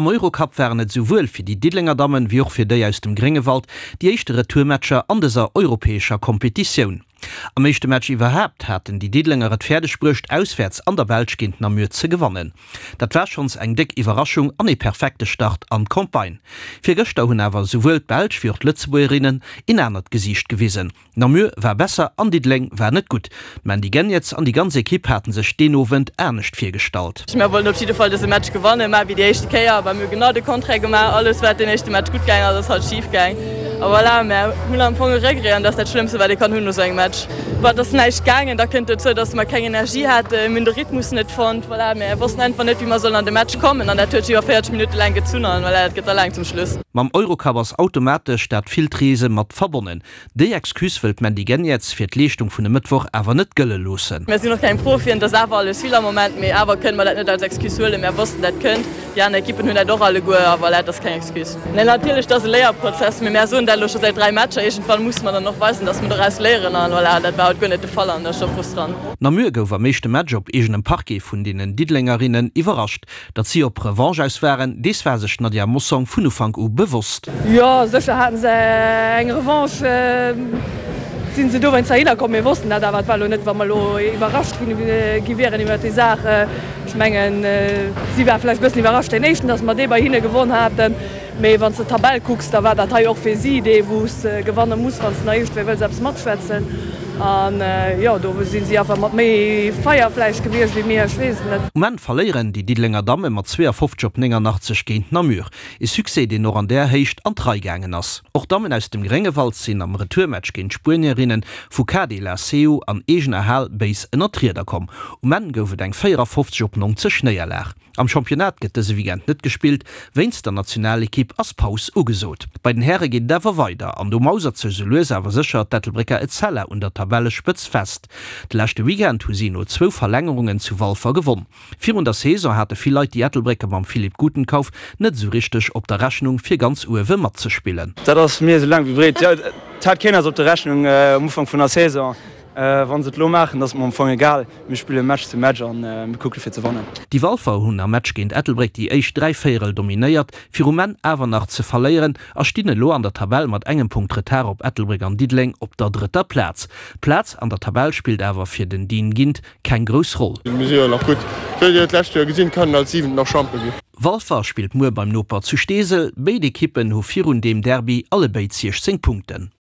Am Eurocup waren et esouwuel fir déi Diddelenger Dammen, wéi och fir déi aus dem Gréngewald déi éischte Retourmatcher an dëser europäescher Kompetitioun. Am éischte Match iwwerhaapt haten déi Diddelenger et fäerdeg bruecht, auswäerts an der Belsch géint Namur ze gewannen. Dat war schonns eng déck Iwwerraschung an ee perfekte Start an d'Campagne. Virgëschter hunn awer esouwuel d'Belsch wéi och d'Lëtzebuergerinnen een anert Gesiicht gewisen. Namur war besser an Diddeleng war net gutt. D'Mandy Geniets an déi ganz Ekipp haten sech deen Owend anescht virgestallt. Mir wollten op jidde Fall dëse Match gewannen, mä wéi déi éischte Kéier, mä mir hu genau de Contraire gemaach. Alles wat den éischte Match gutt gaang ass, ass haut schif gaang. A voilà, mär hunn am Fong e Regret an dat ass dat Schlëmmste wat ee kann hunn no sou engem Match. Bah, et ass näischt gaangen, da kënnt dozou, datt mer keng Energie haten, mir hunn de Rhythmus net fonnt, voilà, mir wossten einfach net wéi mer sollen an de Match kommen an dat huet sech iwwer 40 Minutte laang gezunn an voilà, dat gëtt da laang zum Schluss. Mam Eurocup ass automatesch dat villt Reese mat verbonnen. Déi Excuse wëll d'Mandy Geniets fir d'Leeschtung vun e Mëttwoch awer net gëlle loossen. Mär sinn och keng Profien, et ass awer alles vill am Moment, mee awer kënne mer dat net als Excuse huelen. Mär wossten, dat kënnt, déi aner Ekippen hunn dat och alleguer a voilà, et ass keng Excuse. Nee, natierlech, et ass e Léierprozess, mee mär soen dat elo scho säit 3 Matcher. Iergendwann musse mer dann och weisen, datt mer doraus léieren a voilà, dat war haut guer net de Fall an dat ass scho frustrant. Namur gouf am éischte Match op eegenem Parquet vun deenen Diddelengerinnen iwwerrascht. Datt si op Revanche aus waren, dees war sech d'Nadia Mossong vun Ufank u bewosst. Jo, sécher haten se eng Revanche, sinn se dowéinst heihinner komm. Mir wossten dat awer. Et war elo net, wa mer elo iwwerrascht gi wieren iwwer déi Saach. Ech mengen, si ware vläicht e bëssen iwwerrascht deen éischten, datt mer dee bei hinne gewonn haten. Mee wann s de d'Tabell kucks, da war dat hei och fir si dee wou s de gewanne muss, wann s de nach iergendwéi wëlls eppes matschwätzen. An jo, do si si einfach mat méi Feier vläicht gewiescht wéi mir, ech weess et net. Um Enn verléieren déi Diddelenger Damme mat 52 op 89 géint Namur. E Succès, deen och an där Héicht an d'Rei gaangen ass. Och d'Dammen aus dem Gréngewald sinn am Retourmatch géint d'Spuenierinne vu KD La Seu an eegener Hal béis ënner d'Rieder komm. Um Enn gouf et eng 54 op 90 Néierlag. Am Championnat gëtt dëse Weekend net gespillt, wéinst der Nationalekipp ass Paus ugesot. Bei den Häre geet et awer weider an do mausert sech sou lues awer sécher d'Ettelbrécker Etzella un der Tabellespëtz fest. De leschte Weekend hu si no zwou Verlängerungen zu Walfer gewonn. Virun der Saison hate vill Leit déi Ettelbrécker mam Philippe Gutenkauf net esou richteg op der Rechnung fir ganz uewe matzespillen. Dat ass mir esou laang wéi breet. Jo, et hat keen eis op der Rechnung um Ufank vun der Saison. Wann se et lo maachen, ass et mer am Fong egal. Mir spille Match zu Match an mir kucke fir ze wannen. Déi Walfer hunn am Match géint Ettelbréck déi éischt 3 Véierel dominéiert, fir um Enn awer nach ze verléieren a stinn elo an der Tabell mat engem Punkt Retard op Ettelbréck an Diddeleng op der drëtter Plaz. D'Plaz an der Tabell spillt awer fir den Dean Gindt keng grouss Roll. Mir si jo nach gutt. Wéi dir d'lescht Joer gesinn, kann en als Siwenten nach Champion ginn. Walfer spillt muer beim Noper zu Steesel. Béid Ekippen hu virun deem Derby allebéid 16 Punkten.